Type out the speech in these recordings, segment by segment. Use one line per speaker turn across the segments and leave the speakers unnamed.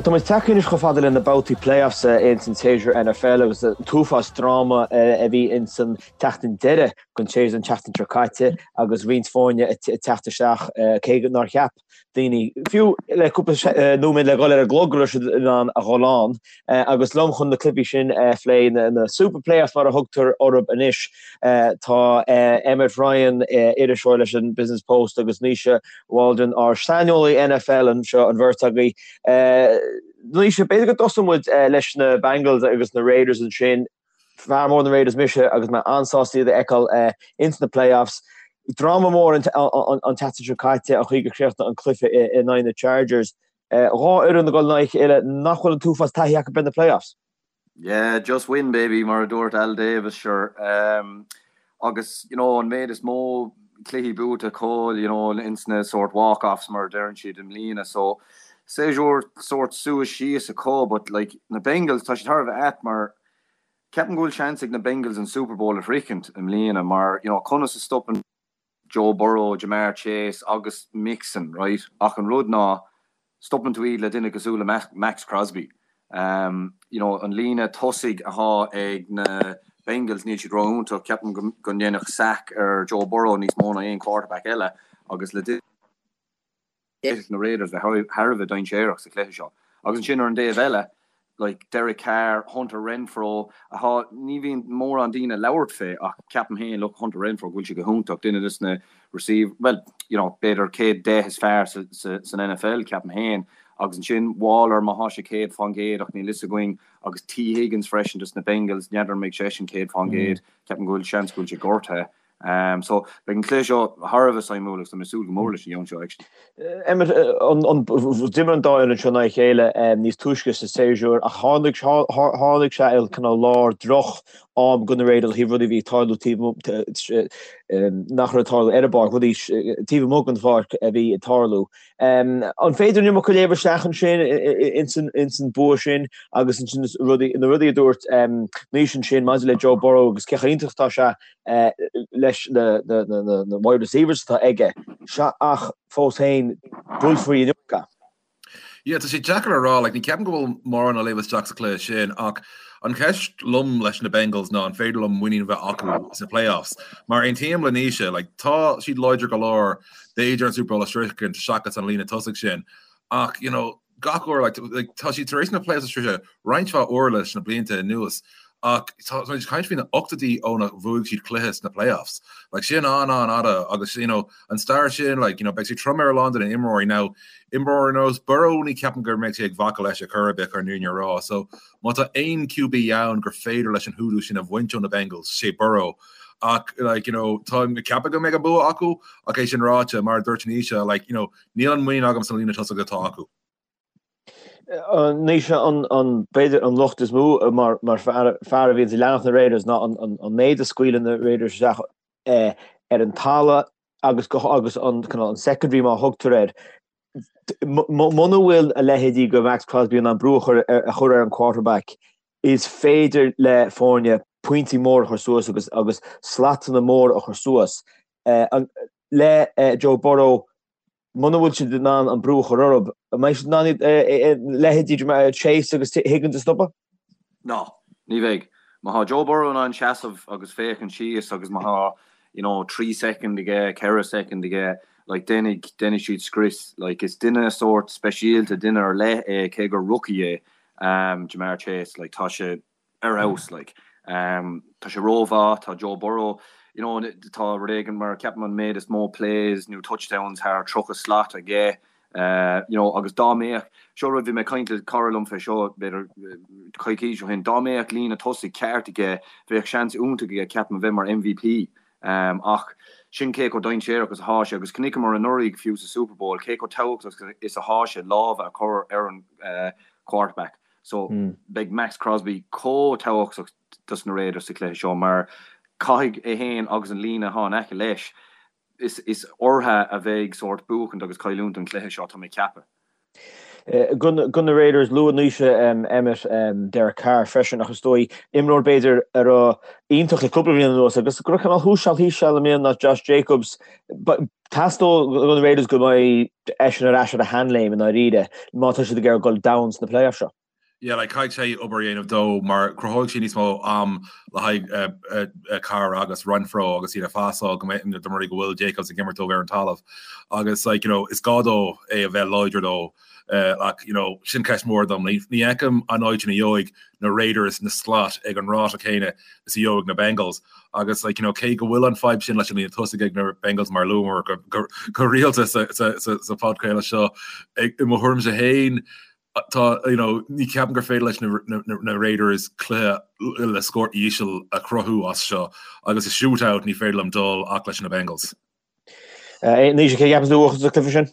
Bhuel, tá muid tagtha anois chomh fada le na babhtaí playoffs ins an tséasúr NFL agus an t-uafás dráma a bhí ins an tseachtain deiridh den tséasúr an tseachtain seo caite agus roinnt foirne ag teacht isteach cé nár cheap daoine, fiú le cúpla nóiméad le dhul ar an gclog go raibh siad in ann a dhul ann. Agus liom chun na cluichí sin a phlé, na Super Playoffs mar a thugtar orthu anois, tá Emmet Ryan, iriseoir leis an Business Post agus Naoise Waldron, ár saineolaí NFL anseo, an bheirt agaibh. Naoise, b'fhéidir go dtosóidh muid leis na Bengals agus na Raiders ansin. Fear mór na Raiders mise agus mé an-sásta iad a fheiceáil ins na playoffs. Dráma mór an tseachtain seo caite, an chaoi gur chríochnaigh an cluiche in aghaidh na Chargers. Dhá fhoireann ag dul in aghaidh a chéile nach bhfuil an t-uafás taithí acu ar na playoffs.
Yeah, just win baby mar a dúirt Al Davis, sure. Agus you know an méid is mó cluichí buaite acu you know ins na sort walk-offs mar a deireann siad i mbliana so séasúr sort suas síos acu but like na Bengals tá siad thar a bheith ait mar ceapaim go bhfuil seans ag na Bengals an Super Bowl a shroichint i mbliana mar you know conas a stopann Joe Burrow, Ja'Marr Chase agus Mixon, right? Ach an rud ná, stopann tú iad le duine cosúil le Maxx Crosby. You know, an líne tosaigh athá ag na Bengals, níl siad ró-iontach. Ceapaim go ndéanfadh sack ar Joe Burrow níos mó ná aon quarterback eile agus le duine. D'fhéadfadh na Raiders bheith thar a bheith dainséarach sa chluiche seo. Agus ansin ar an dtaobh eile, like, Derek Carr, Hunter Renfrow, athá, ní bhíonn mórán daoine ag labhairt fé ach ceapaim féin, look, Hunter Renfrow, go bhfuil sé go hiontach, duine des na receive, well, you know, b'fhéidir céad 10 is fearr sa, sa, san NFL, ceapaim féin. Agus ansin Waller, má thá sé 100% ach níl fhios againn, agus Tee Higgins freisin des na Bengals, n'fheadar an mbeidh seisean 100%, ceapaim go bhfuil seans go bhfuil sé gortaithe. So, beidh an cluiche seo thar a bheith suimiúil agus tá mé ag súil go mór leis an gceann seo actually.
Emmet, d'imir an dá fhoireann seo in aghaidh a chéile níos túisce sa séasúr ach tháinig tháinig sé i cineál lár droch am do na Raiders ó thaobh rudaí a bhí ag tarlú taobh nach raibh ag tarlú ar an bpáirc, rudaí taobh amuigh den pháirc a bhí ag tarlú. An féidir an iomarca a léamh isteach ansin ins an bua sin agus ansin na rudaí a dúirt Naoise ansin maidir le Joe Burrow agus cé chomh iontach atá sé leis na wide receivers atá aige, sea ach fós féin buailfear an iomarca.
Yeah, tá sé deacair a rá, like, ní ceapaim go bhfuil mórán a léamh isteach sa chluiche sin ach an cheist liom leis na Bengals ná an féidir liom muinín a bheith acu sna playoffs. Mar aontaím le Naoise, like, tá siad láidir go leor, b'fhéidir an Super Bowl a shroichint seachas an líne tosaigh sin ach, you know, gach uair, like, like, tá siad tar éis na playoffs a shroicheadh roinnt mhaith uair leis na blianta anuas ach tá muid ag caint faoi na ochtóidí ónar bhuaigh siad cluiche sna playoffs. Like, sin an-an-fhada agus, you know, an stair sin, like, you know, beidh sé trom ar a lán de na imreoirí. Now, imreoir ar nós Burrow ní ceapaim go mbeidh sé ag bacadh leis ar chor ar bith chun an fhírinne a rá. So, má tá aon QB ann gur féidir leis an hoodoo sin a bhaint ó na Bengals, sé Burrow. Ach, like, you know, táim ag ceapadh go mbeidh an bua acu ach é sin ráite, mar a dúirt Naoise, like, you know, Níl an muinín agam sa líne tosaigh atá acu.
Naoise, an, b'fhéidir an locht is mó mar fear a bhíonns ag leanacht na Raiders ná an méid a scaoileann na Raiders isteach ar an talamh agus agus an an secondary mar a thugtar air. Muna bhfuil a leithéidí de Maxx Crosby in ann brú a chur a chur ar an quarterback, is féidir le foirne pointí móra a chur suas agus agus slatanna móra a chur suas. Le Joe Burrow, muna bhfuil siad in ann an brú a chur orthu, an mbeidh siad in ann iad leithéidí Chase agus Higgins a stopadh?
Ná, ní bheidh. Má thá Joe Burrow in ann seasamh agus féachaint síos agus má thá, you know, 3 soicind aige, 4 soicind aige, like, déanfaidh, déanfaidh siad scrios. Like, is duine sórt speisialta, duine ar leith é, cé gur rookie é, Ja'Marr Chase, like, tá sé, ar fheabhas like. Tá sé rómhaith, tá Joe Burrow, you know, tá rud éigin mar ceapaim an méid is mó plays nó touchdowns thar 30 slat aige, you know, agus dá mbeadh, seo rud bhí mé ag caint le cara liom fé seo b'fhéidir coicís ó shin, dá mbeadh líne tosaigh ceart aige bheadh seans iontach aige ceapaim a bheith mar MVP. Ach sin cé chomh dainséarach is athá sé agus chonaiceamar anuraidh fiú sa Super Bowl cé chomh tábhachtach is athá sé lámha a chur ar an quarterback. So, beidh Maxx Crosby chomh tábhachtach dos na Raiders sa chluiche seo mar caithfidh é féin agus an líne atá in aice leis, is orthu a bheidh sórt buachaint agus cailliúint an chluiche seo, tá mé ag ceapadh.
Do na Raiders, luaigh Naoise Emmet Derek Carr freisin ach is dóigh imreoir b'fhéidir a raibh iontach le cúpla bliain anuas agus go raibh cineál thuas seal thíos seal i mbliana ná Josh Jacobs. Teastóidh do na Raiders go mbeidh eisean ar ais ar a sheanléim i ndáiríre má tá siad ag iarraidh dul domhain sna playoffs seo.
Yeah, like caithfidh sé obair a dhéanamh dó mar cruthóidh sé níos mó am le haghaidh Carr agus Renfrow agus iad ag pasáil go mbeidh dá mba rud é go bhfuil Jacobs ag imirt dóibh ar an talamh agus like you know is gá dó é a bheith láidir dó ach you know sin ceist mhór dom. Ní fheicim an áit ina gheobhaidh na Raiders na slot ag an ráta céanna is a gheobhaidh na Bengals agus like you know cé go bhfuil an fadhb sin leis an líne tosaigh ag na Bengals mar luamar go go rialta sa sa sa podchraoladh seo i mo thuairimse féin Tá, you know, ní ceapaim gur féidir leis na, na, na Raiders cluiche le scór íseal a chruthú as seo agus i shootout ní féidir liom dul ach leis na Bengals.
Naoise, cé a cheapann tú a bhuafas an cluiche sin?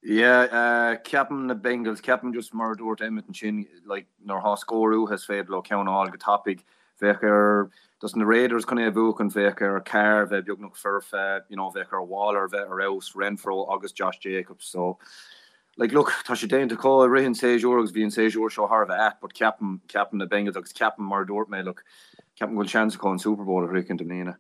Yeah, ceapaim na Bengals, ceapaim just mar a dúirt Emmet ansin, like, nuair atá scór uathu is féidir leo ceann a fháil go tapaidh. Bheadh ar, dos na Raiders chun é a bhuachan, bheadh ar Carr bheith beagnach foirfe, you know, bheadh ar Waller bheith ar fheabhas, Renfrow agus Josh Jacobs, so Like, look, tá sé déanta acu i rith an séasúr agus bhí an séasúr seo thar a bheith ait but ceapaim, ceapaim na Bengals agus ceapaim, mar a dúirt mé, look, ceapaim go bhfuil seans acu an Super Bowl a shroichint i mbliana.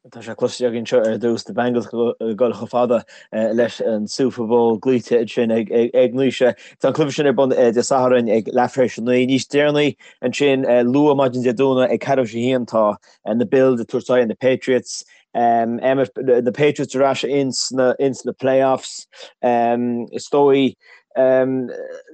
Tá sé cloiste againn seo ar dtús, na Bengals ag dul chomh fada leis an Super Bowl glaoite ansin ag Naoise. Tá an cluiche sin ar bun Dé Sathairn ag leath tar éis a 9. Níos deireanaí ansin, luath maidin Dé Domhnaigh ag ceathrú tar éis a haon tá na Bills ag tabhairt aghaidh ar na Patriots. Emmet, na Patriots ar ais ins na, ins na playoffs. Is dóigh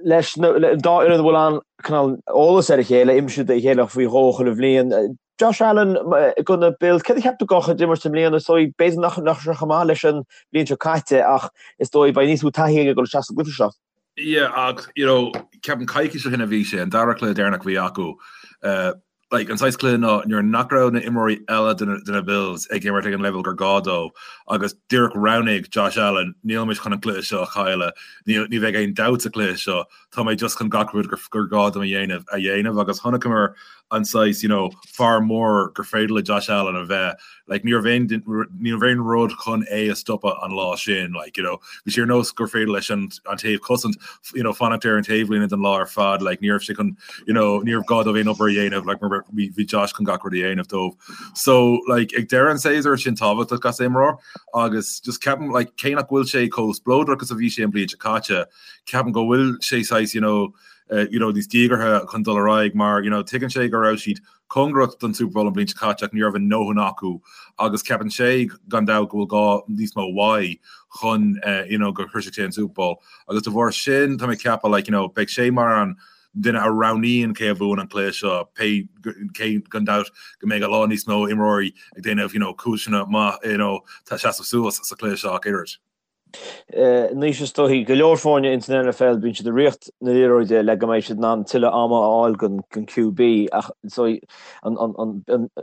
leis na dá fhoireann a bhfuil an cineál eolas ar a chéile, imríonn siad a chéile faoi dhó chuile bhliain. Josh Allen do na Bills, céard a cheap tú dá chuid imirt i mbliana? Is dóigh b'fhéidir nach nach raibh sé chomh maith leis an bhliain seo caite ach is dóigh beidh níos mó taithí aige ag dul isteach sa gcluiche seo.
Yeah, ach you know, ceapaim coicís ó shin a bhí sé, an dara cluiche deireanach a bhí acu. Uh, like, an saghas cluiche ná nuair nach raibh na imreoirí eile de na, de na Bills ag imirt ag an leibhéal gur gá dóibh agus díreach roghnaigh Josh Allen, níl mé chun an cluiche seo a chailleadh, ní, ní bheidh aon dabht sa chluiche seo, tá mé just chun gach rud gur, gur gá dom a dhéanamh a dhéanamh agus chonaiceamar an saghas, you know, fear mór gur féidir le Josh Allen a bheith. Like, ní raibh aon, ní raibh aon rud chun é a stopadh an lá sin, like, you know. Bhí sé ar nós gur féidir leis an, an taobh cosaint, you know, fanacht ar an taobhlíne don lá ar fad, like, ní raibh sé chun, you know, ní raibh gá dóibh aon obair a dhéanamh, like, mar bhí, bhí Josh chun gach rud a dhéanamh dóibh. So, like, ag deireadh an tséasúir sin tábhachtach as imreoir agus just ceapaim, like, cé nach bhfuil sé chomh spleodrach is a bhí sé an bhliain seo caite, ceapaim go bhfuil sé saghas, you know, you know, níos díogartha chun dul ar aghaidh mar, you know, tuigeann sé go raibh siad cóngarach don Super Bowl an bhliain seo caite ach ní raibh a ndóthain acu agus ceapann sé gan dabht go bhfuil gá níos mó uaidh chun you know, go shroisfeadh sé an Super Bowl agus de bharr sin tá mé ag ceapadh like, you know, beidh sé mar an duine a roghnaíonn cé a bhuann an cluiche seo pé cé gan dabht go mbeidh a lán níos mó imreoirí ag déanamh you know, cúiseanna maith you know, tá seasamh suas sa chluiche seo ach oiread.
Anois is dóigh, go leor foirne ins an NFL bíonn siad ag ritheacht na liathróide le go mbeidh siad in ann tuilleadh ama a fháil don QB ach is dóigh an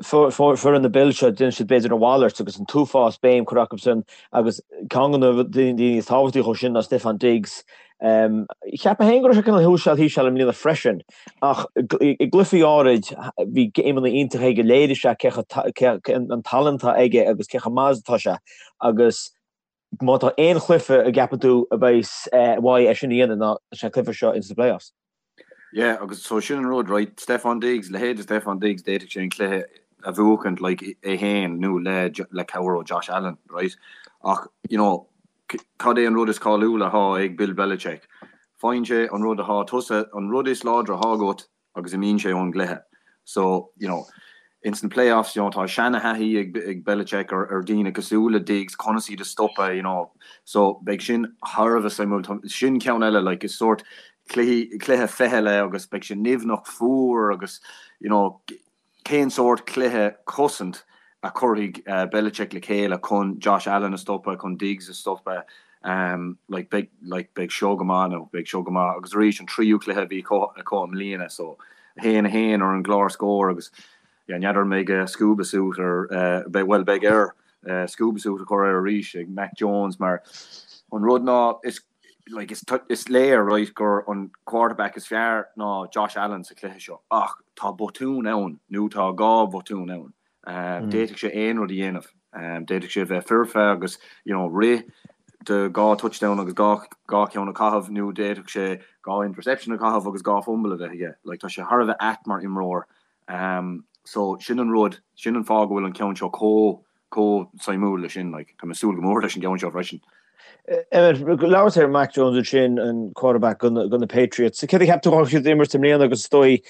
foireann na Bills seo déanann siad b'fhéidir a mhalairt agus an t-uafás béim curtha acu sin agus ceann de na daoine is tábhachtaí acu sin ná Stefon Diggs. Cheap mé féin go raibh sé cineál thuas seal thíos seal i mbliana freisin ach i gcluichí áirid bhí géimeanna iontacha aige léirigh sé cé an tallann atá aige agus cé chomh maith is atá sé agus Má tá aon chluiche a gceapann tú a bheas uaidh é sin a dhéanamh ná is é an cluiche seo ins na playoffs.
Yeah, agus so sin an rud, right, Stefon Diggs, leithéid de Stefon Diggs, d'fhéadfadh sé an cluiche a bhuachaint, like, é féin nó le, le cabhair ó Josh Allen, right? Ach, you know, cad é an rud is cáiliúla atá ag Bill Belichick? Faigheann sé an rud atá tusa, an rud is láidre atá agat, agus imíonn sé ón gcluiche. So, you know, ins na playoffs, you know, tá seana-thaithí ag, ag Belichick ar, ar daoine cosúil le Diggs, conas iad a stopadh, you know. So, beidh sin thar a bheith suimiúil. Tá, sin ceann eile, like, is sórt cluichí, cluiche ficheall é agus beidh sé nimhneach fuar agus, you know, Cén sórt cluiche cosaint a chuirfidh Belichick le chéile chun Josh Allen a stopadh, chun Diggs a stopadh? Like beidh like beidh seo go maith nó beidh seo go maith. Agus arís an tríú cluiche a bhí acu i mbliana so 1 1 ar an gclár scóir agus yeah n'fheadar an mbeidh scuba suit ar beidh bhuel beidh air scuba suit a chur air arís ag Mac Jones mar an rud ná is like is is léir right gur an quarterback is fearr ná Josh Allen sa chluiche seo ach tá botún ann nó tá gá bhotún ann. D'fhéadfadh sé aon rud a dhéanamh. D'fhéadfadh sé a bheith foirfe agus you know rith. de 2 touchdown agus 2 2 ceann a chaitheamh nó d'fhéadfadh sé 2 interception a chaitheamh agus 2 fumble a bheith aige. Like tá sé thar a bheith ait mar imreoir. Um, so sin an rud, sin an fáth go bhfuil an ceann seo chomh chomh suimiúil leis sin. Like tá mé ag súil go mór leis an gceann seo freisin.
Emmet, labhair ar Mac Jones ansin, an quarterback do na Patriots. Céard a cheap tú go siad imirt i mbliana agus is dóigh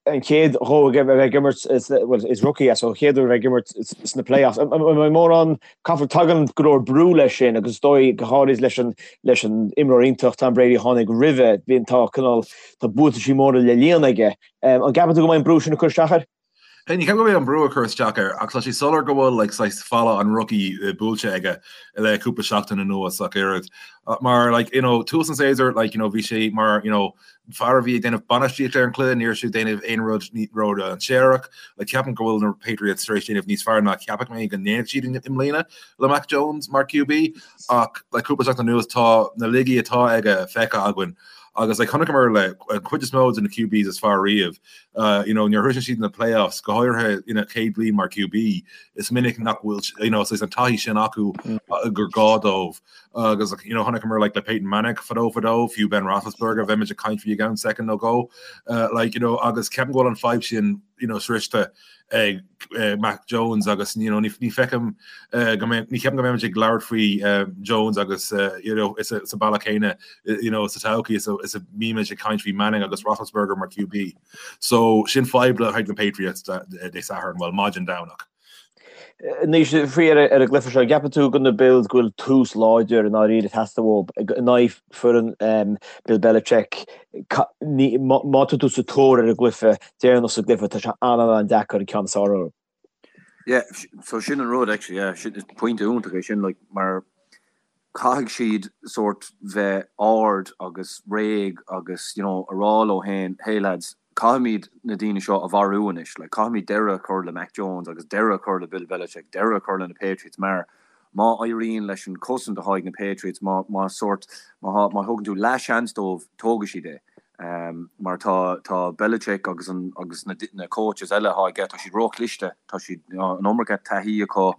an chéad dhó a bheith ag imirt, well, is rookie é, so an chéad uair a bheith ag imirt sna playoffs. An mbeidh mórán, caithfear, tagann go leor brú leis sin agus is dóigh go háirid leis an leis an imreoir iontach Tom Brady a tháinig roimhe, bíonn tá cineál, tá buataisí móra le líonadh aige. An gceapann tú go mbeidh an brú sin ag cur isteach air?
Ní ceapaim go mbeidh an brú ag cur isteach air ach tá sé soiléir go bhfuil like saghas falla an rookie buailte aige le cúpla seachtain anuas ach oiread. Mar like you know tús an séasúir like you know bhí sé mar you know fear a bhí ag déanamh bainistíocht ar an cluiche, ní raibh sé ag déanamh aon rud ródhainséarach. Like ceapaim go bhfuil na Patriots tar éis déanamh níos fearr ná ceapadh mé go ndéanfadh siad i mbliana le Mac Jones mar QB ach like cúpla seachtain anuas tá na laigí atá aige feicthe againn agus like chonaiceamar le an chuid is mó de na QBs is fearr riamh You know, nuair a shroiseann siad na playoffs, go háirithe ina chéad bhliain mar QB, is minic nach bhfuil, you know, saghas an taithí sin acu gur gá dóibh. Agus, you know, chonaiceamar like le Peyton Manning fadó fadó, fiú Ben Roethlisberger, bheimid ag caint faoi i gceann soicind nó dhó, like, you know, agus ceapaim go bhfuil an fadhb sin, you know, sroichte ag Mac Jones agus, you know, ní feicim go mbeidh, ní cheapaim go mbeimid ag labhairt faoi Jones agus, you know, sa bealach céanna, you know, sa todhchaí is a mbímid ag caint faoi Manning agus Roethlisberger mar QB. So sin fadhb le haghaidh na Patriots Dé Sathairn, bhuel, maidin Domhnach.
Anois, faoi ar an gcluiche seo, gceapann tú do na Bills go bhfuil tús láidir i ndáiríre ag teastáil uathu in aghaidh foireann Bill Belichick? Má tá tú sa tóir ar an gcluiche deireanach sa gcluiche, tá sé an-an-deacair an ceann is fearr orthu.
Yeah, so sin an rud actually, yeah, sin, is pointe iontach é sin, like, mar caithfidh siad sórt bheith ard agus réidh agus, you know, a rá leo féin, hey lads, caithfimid na daoine seo a mharú anois, like, caithfimid deireadh a chur le Mac Jones agus deireadh a chur le Bill Belichick, deireadh a chur le na Patriots mar má éiríonn leis an chosaint atá ag na Patriots, má, má sórt, má, má thugann tú leath-sheans dóibh, tógfaidh siad é. Mar tá, tá Belichick agus an, agus na, na coaches eile atá aige, tá siad róchliste, tá siad, an iomarca taithí acu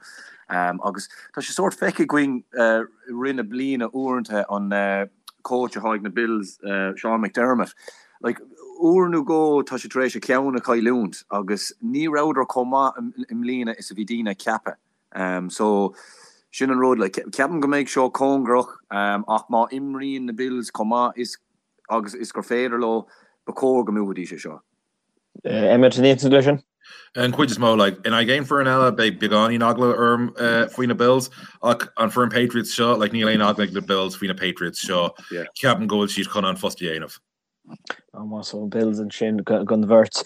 agus tá sé sórt feicthe againn i rith na bliana uaireanta an coach atá ag na Bills, Sean McDermott, like uair nó dhó tá sé tar éis a cheann a chailliúint agus ní rabhadar chomh maith i mbliana is a bhí daoine ag ceapadh. So sin an rud, like ceapaim go mbeidh seo cóngarach ach má imríonn na Bills chomh maith is agus is gur féidir leo, ba chóir go mbuafaidís é seo.
Emmet, an aontaíonn tú leis sin?
An chuid is mó, like, in aghaidh aon foireann eile, beidh beagáinín eagla orm faoi na Bills, ach an foireann Patriots seo, like, níl aon eagla ag na Bills faoi na Patriots seo. Ceapaim go bhfuil siad chun an post a dhéanamh.
Más ó Bills ansin don bheirt.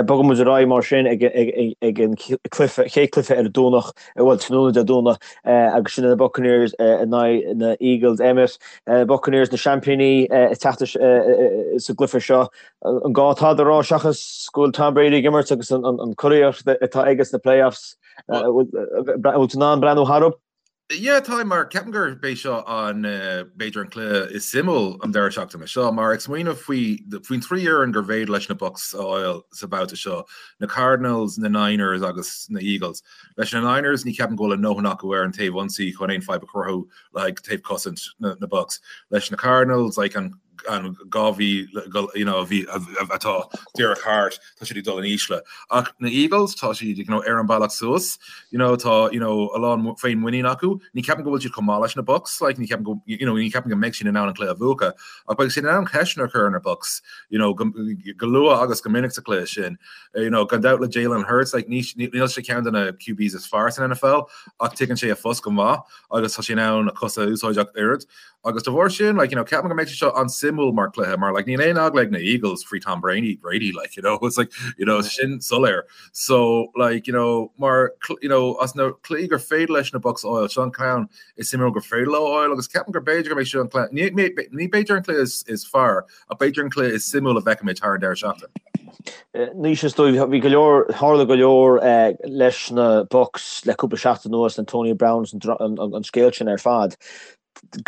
Bogann muid ar aghaidh mar sin ag an cluiche, chéad cluiche ar an Domhnach, bhuel tráthnóna Dé Domhnaigh agus sin na Buccaneers in aghaidh na Eagles. Emmet, Buccaneers na seaimpíní ag teacht sa gcluiche seo. An gá tada a rá seachas go bhfuil Tom Brady ag imirt agus an curaíocht atá aige sna playoffs? Bhfuil tú in ann breathnú tharthu?
Yeah, táim mar ceapaim gurb é seo an b'fhéidir an cluiche is suimiúil an deireadh seachtaine seo mar ag smaoineamh faoi faoin trí fhoireann gur bhféidir leis na Bucs a fháil sa bhabhta seo, na Cardinals, na Niners agus na Eagles. Leis na Niners ní ceapaim go bhfuil a ndóthain acu ar an taobh ionsaí chun aon fadhb a chruthú le haghaidh taobh cosaint na na Bucs. Leis na Cardinals like an an 2 mhí you know, a bhí atá díreach thart, tá siad ag dul in ísle. Ach na Eagles, tá siad you know, ar an bealach suas, you know, tá you know, a lán féinmhuinín acu. Ní ceapaim go bhfuil siad chomh maith leis na Bucs, like, ní ceapaim go, you know, ní ceapaim go mbeidh siad in ann an cluiche a bhuachan, ach beidh siad in ann ceisteanna a chur ar na Bucs, you know, go, go luath agus go minic sa chluiche sin. You know, gan dabht le Jalen Hurts, like, ní, níl sé ceann de na QBs is fearr san NFL, ach tuigeann sé a phost go maith agus tá sé in ann a cosa a úsáid ach oiread. Agus de bharr sin, like, you know, ceapaim go mbeidh sé seo an-suimiúil mar cluiche, mar, like, níl aon eagla ag na Eagles faoi Tom Brady, Brady, like, you know, it's like, you know, sin soiléir. So, like, you know, mar, you know, as na cluichí gur féidir leis na Bucs a fháil, seo an ceann is suimiúil gur féidir leo a fháil, agus ceapaim gur b'fhéidir go mbeidh seo an cluiche, ní, ní, ní b'fhéidir an cluiche is, is fearr, ach b'fhéidir an cluiche is suimiúil a bhfeicfimid thar an deireadh seachtaine.
Anois is dóigh, bhí go leor, tharla go leor leis na Bucs le cúpla seachtain anuas, Antonio Brown, an, an, an scéal sin ar fad.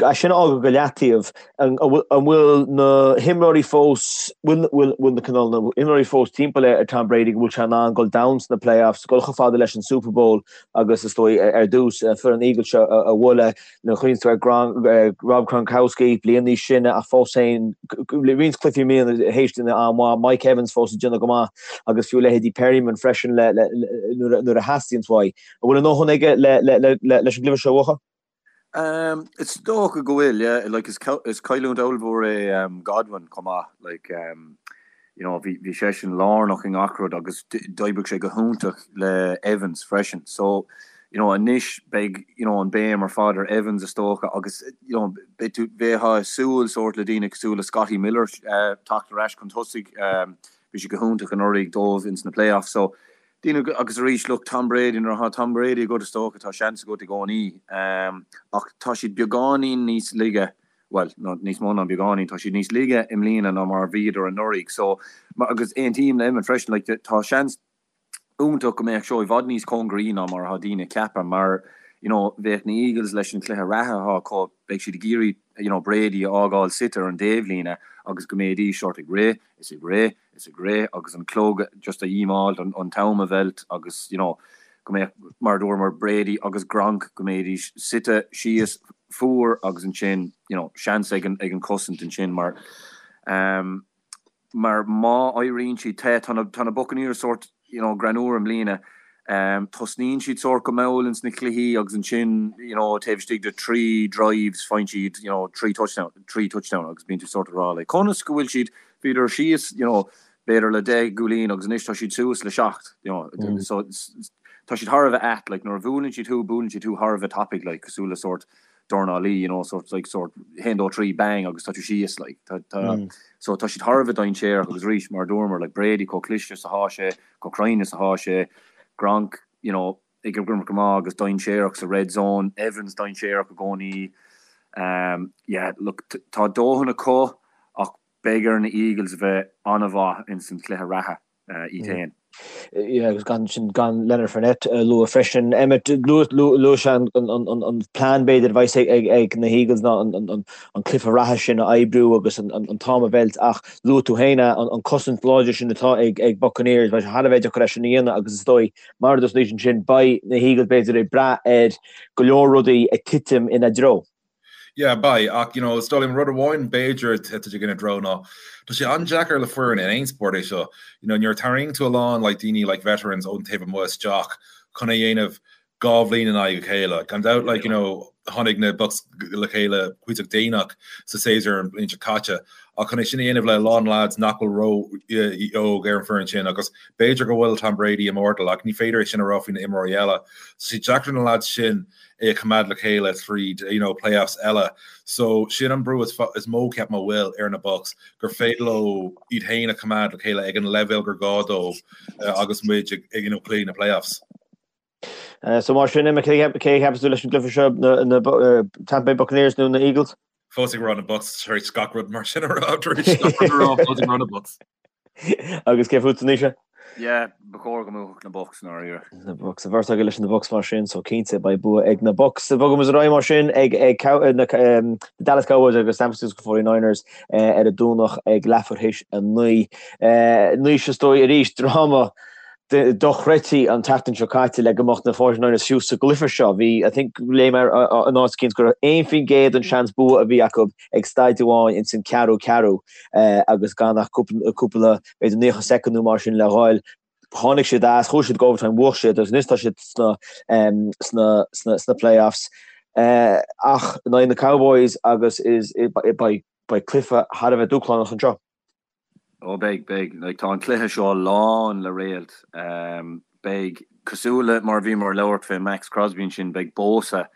É sin a fhágáil go leataobh, an bhfuil na himreoirí fós, bhfuil na cineál na himreoirí fós timpeall ar Tom Brady go bhfuil sé in ann dul domhain sna playoffs, dul chomh fada leis an Super Bowl agus is dóigh ar dtús foireann Eagles seo a bhualadh, nuair a chuimhníonn tú ar Rob Gronkowski, bliain níos sine ach fós féin, roinnt cluichí i mbliana théis déanamh an-mhaith, Mike Evans fós ag déanamh go maith agus fiú leithéidí Perriman freisin nuair a theastaíonn uaidh. An bhfuil a ndóthain aige leis an gcluiche seo a bhuachan?
Is dócha go bhfuil, yeah. Like, is is cailliúint ollmhór é Godwin chomh maith. Like, you know, bhí bhí seisean lárnach i ngach rud agus d'oibrigh sé go hiontach le Evans freisin. So, you know, anois beidh, you know, an béim ar fad ar Evans is dócha agus, you know, beidh tú, bheifeá ag súil sórt le daoine cosúil le Scotty Miller teacht ar ais chun tosaigh. Bhí sé go hiontach anuraidh dóibh ins na playoffs. So, Daoine, agus arís, look, Tom Brady, nuair atá Tom Brady agat is dócha tá seans agat i gcónaí. Ach tá siad beagáinín níos laige, bhuel, nó níos mó ná beagáinín, tá siad níos laige i mbliana ná mar a bhíodar anuraidh. So, agus aontaím le Emmet freisin, like, tá seans iontach go mbeadh seo i bhfad níos cóngaraí ná mar atá daoine ag ceapadh mar, you know, bheadh na Eagles leis an chluiche reatha atá acu, beidh siad ag iarraidh, you know, Brady a fhágáil suite ar an dtaobhlíne agus go mbeidís sort ag rith is ag rith is ag rith agus an clog just a dhímeáilt, an t-am a mheilt agus you know go mbeadh, mar a dúramar, Brady agus Gronk, go mbeidís suite síos fuar agus ansin you know seans ag an ag an cosaint ansin mar ehm mar má éiríonn siad te, tá na tá na Buccaneers sórt you know greannmhar i mbliana ehm tosnaíonn siad sórt go mall ins na cluichí agus ansin you know taobh istigh de 3 drives faigheann siad you know 3 touchdown 3 touchdown agus bíonn tú sórt ag rá like conas go bhfuil siad Bhíodar síos, you know, b'fhéidir le 10 gcúilín agus anois tá siad suas le 7, you know, so tá siad thar a bheith ait, like, nuair a bhuaileann siad thú, buaileann siad thú thar a bheith tapaidh, like, cosúil le sórt dornálaí, you know, sort, like, sort, haon, dó, trí, bang, agus tá tú síos, like, tá, tá, so tá siad thar a bheith dainséarach agus arís, mar a dúramar, like, Brady chomh cliste is atá sé, chomh cruinn is atá sé, Gronk, you know, ag imirt go maith agus dainséarach sa red zone, Evans dainséarach i gcónaí. Yeah, look, tá dóthain acu ach beidh ar na Eagles a bheith an-mhaith ins an chluiche reatha iad féin.
Yeah, agus gan sin gan Leonard Fournette a lua freisin. Emmet, luaigh sé an plean b'fhéidir a bheas ag na hEagles ná an cluiche reatha sin a oibriú agus an t-am a mheilt ach luaigh tú féin an cosaint láidir sin atá ag Buccaneers, beidh sé thar a bheith deacair é sin a dhéanamh agus is dóigh Mar a dúirt Naoise ansin, beidh na hEagles b'fhéidir ag brath ar go leor rudaí ag titim ina dtreo.
Yeah, beidh, ach you know, is dóigh liom rud amháin b'fhéidir a thitfidh ina dtreo ná tá sé an-deacair le foireann in aon spórt é seo, you know, nuair a tarraingíonn tú a lán like daoine like veterans ón taobh amuigh isteach chun é a dhéanamh 2 bhliain in aghaidh a chéile. Gan dabht, like, you know, tháinig na Bucs le chéile cuíosach déanach sa séasúr an bhliain seo caite, ach chun é sin a dhéanamh le a lán lads nach bhfuil ró-óg ar an foireann sin, agus b'fhéidir go bhfuil Tom Brady immortal, ach ní féidir é sin a rá faoi na imreoirí eile. So sé deacair na lads sin é a choimeád le chéile tríd, you know, playoffs eile. So sin an brú is mó, ceapaim, a bhfuil ar na Bucs, gur féidir leo iad féin a choimeád le chéile ag an leibhéal gur gá dóibh agus muid ag, you know, plé na playoffs.
So mar sin, Emmet, cé a cheapas tú leis an gcluiche seo, na Tampa Bay Buccaneers nó na Eagles?
Fós ag rá na Bucs tar éis gach rud mar sin a rá, tar éis gach rud a rá, fós ag rá na Bucs.
Agus cé fút, Naoise?
Yeah, ba chóir go mbuafadh na Bucs, i ndáiríre.
Na Bucs. An bheirt agaibh leis na Bucs mar sin, so cinnte beidh bua ag na Bucs. Bogaimis ar aghaidh mar sin ag na Dallas Cowboys agus San Francisco 49ers ar an Domhnach ag leathuair théis 9. Naoise is dóigh arís, dráma dochreidte an tseachtain seo caite le go mbeadh na 49ers fiú sa gcluiche seo. Bhí, I think, léigh mé in áit eicínt go raibh 1% den seans bua a bhí acu ag staid amháin ins an ceathrú ceathrú agus gan ach cúpla, b'fhéidir 90 soicind nó mar sin le ghoil. Tháinig siad as, chuaigh siad go overtime, bhuaigh siad agus anois tá siad sna, sna, sna, sna playoffs. Ach in aghaidh na Cowboys agus is, beidh, beidh cluiche thar a bheith dúshlánach anseo.
Ó beidh, beidh. Like, tá an cluiche seo lán le réalt. Beidh, cosúil le mar a bhíomar ag labhairt fé Maxx Crosby ansin, beidh Bosa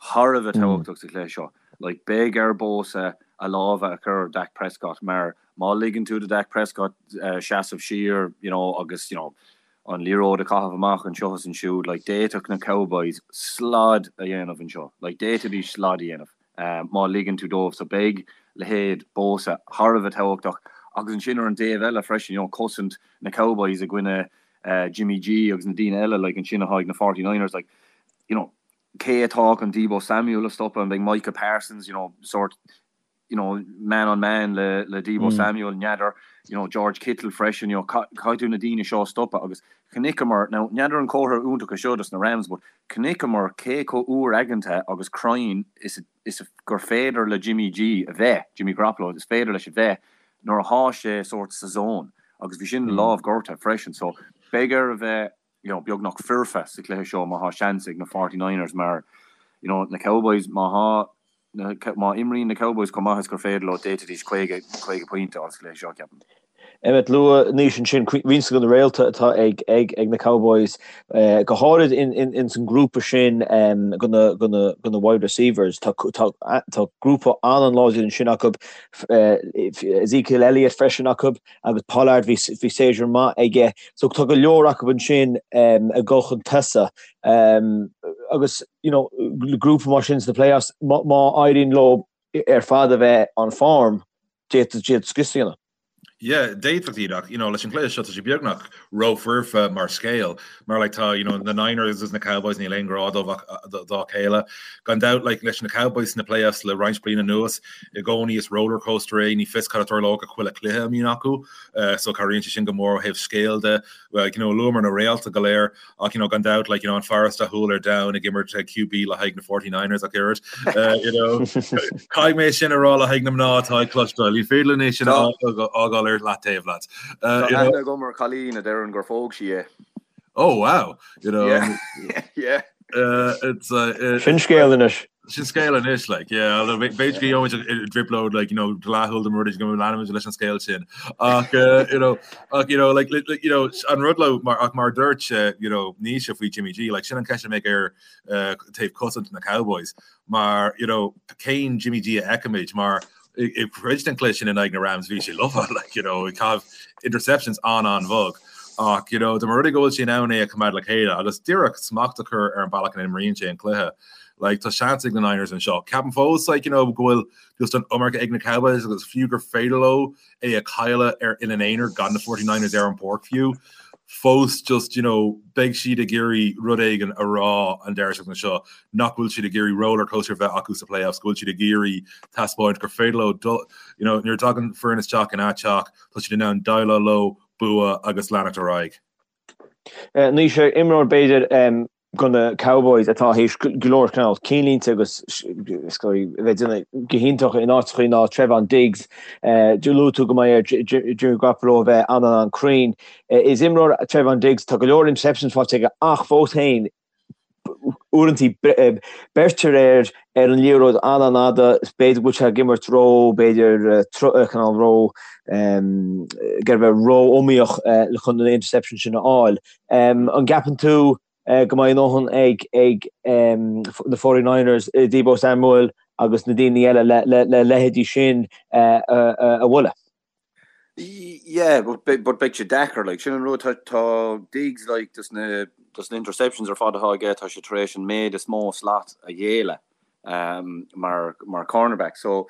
thar a bheith tábhachtach sa chluiche seo. Like, beidh ar Bosa a lámha a chur ar Dak Prescott mar má ligeann tú do Dak Prescott seasamh siar, you know, agus, you know, an liathróid a chaitheamh amach anseo is ansiúd, like, d'fhéadfadh na Cowboys slad a dhéanamh anseo. Like, d'fhéadfaidís slad a dhéanamh. má ligeann tú dóibh. So beidh leithéid Bosa thar a bheith tábhachtach agus ansin ar an dtaobh eile freisin, you know, cosaint na Cowboys i gcoinne Jimmy G agus na daoine eile like ansin atá ag na 49ers like, you know, Cé atá chun Deebo Samuel a stopadh? An mbeidh Micah Parsons, you know, sort, you know, man on man le le Deebo Samuel, n'fheadar, you know, George Kittle freisin, you know, caithfidh tú na daoine seo a stopadh agus chonaiceamar, now n'fheadar an comhartha iontach é seo dos na Rams but chonaiceamar cé chomh úr-aigeanta agus cruinn is is gur féidir le Jimmy G a bheith, Jimmy Garoppolo, is féidir leis a bheith nuair athá sé sort sa zone agus bhí sin lámh gortaithe freisin so beidh air a bheith you know, beagnach foirfe sa chluiche seo má thá seans ag na Forty Niners mar, you know, na Cowboys, má thá na, má imríonn na Cowboys chomh maith is gur féidir leo, d'fhéadfaidís 50, 50 pointe a fháil sa chluiche seo, ceapaim.
Emmet, luaigh Naoise ansin roinnt de na réalta atá ag, ag, ag na Cowboys, go háirid in, in, ins an grúpa sin de na, de na, de na wide receivers. Tá, tá, tá grúpa an-an-láidir ansin acu, Ezekiel Elliott freisin acu. agus Pollard bhí séasúr maith aige so tá go leor acu ansin ag dul chun tosaigh agus you know grúpa mar sin sna playoffs má éiríonn leo ar fad a bheith on form d'fhéadfadh siad scrios a dhéanamh.
Yeah, d'fhéadfadh iad ach you know leis an gcluiche seo tá sé beagnach rófhoirfe mar scéal mar like tá you know na Niners agus na Cowboys níl aon ghrá dóibh ach dá chéile. Gan dabht like leis na Cowboys sna playoffs le roinnt bliain anuas i gcónaí is rollercoaster é, ní fios cad a tarlóidh ag chuile chluiche a mbíonn acu so cabhraíonn sé sin go mór ó thaobh scéil de. Like, you know, luamar na réalta go léir ach you know, gan dabht like, you know, an fear is dathúla ar domhan ag imirt QB le haghaidh na 49ers ach oiread. You know, caithfidh mé sin a rá le haghaidh na mná atá ag cloisteáil, ní féidir linn é sin a fhágáil ar leataobh
leat. Tá aithne agam ar chailín a deireann gur phóg sí é.
Oh wow! You know,
Yeah. Yeah.
It's uh,
Sin scéal anois.
Sin scéal anois, like, yeah, although b'fhéidir go gheobhaimid i dtrioblóid, like, you know, dleathúil de rud go leanfaimid leis an scéal sin. Ach, uh, you know, ach, you know, like, like, you know, an rud le, mar, ach mar dúirt, uh, you know, Naoise faoi Jimmy G, like, sin an ceist a mbeidh ar uh, taobh cosaint na Cowboys, mar, you know, cén Jimmy G a fheicfimid, mar i gcuid den chluiche sin in aghaidh na Rams bhí sé lofa, like, you know, ag caitheamh interceptions an-an-bhog. Ach, you know, dá mba rud é go bhfuil sé in ann é a choimeád le chéile agus díreach smacht a chur ar an bealach ina n-imríonn sé an cluiche, like, tá seans ag na Niners anseo. Ceapaim fós, like, you know, go bhfuil just an iomarca ag na Cowboys agus fiú gur féidir leo é a chailleadh ar ina n-aonar gan na 49ers ar an bpáirc fiú, fós just, you know, beidh siad ag iarraidh rud éigin a rá an deireadh seachtaine seo, nach bhfuil siad ag iarraidh rollercoaster a bheith acu sa playoffs, go bhfuil siad ag iarraidh taispeáint gur féidir leo dul, you know, nuair a tagann foireann isteach ina dteach, tá siad in ann déileáil leo, bua agus leanacht ar aghaidh.
Naoise, imreoir b'fhéidir do na Cowboys atá théis go leor cineál cinnlínte agus is dóigh a bheith ag déanamh go hiontach in áiteachaí ná Trevon Diggs. Luaigh tú go mbeidh ar Jimmy Garoppolo a bheith an-an-an-cruinn. Is imreoir Trevon Diggs, tá go leor interceptions faighte aige ach fós féin uaireantaí beirtear air ar an liathróid an-an-fhada, b'fhéidir go bhfuil sé ag imirt ró, b'fhéidir cineál ró, ag iarraidh bheith ró-iomaíoch chun an interception sin a fháil. An gceapann tú go mbeidh a ndóthain ag ag na 49ers, Deebo Samuel agus na daoine eile le leithéidí sin a bhualadh?
Yeah, but but beidh sé deacair, like, sin an rud, tá tá Diggs, like, dos na dos na interceptions ar fad atá aige, tá sé tar éis an méid is mó slat a ghéilleadh um, mar mar cornerback. So,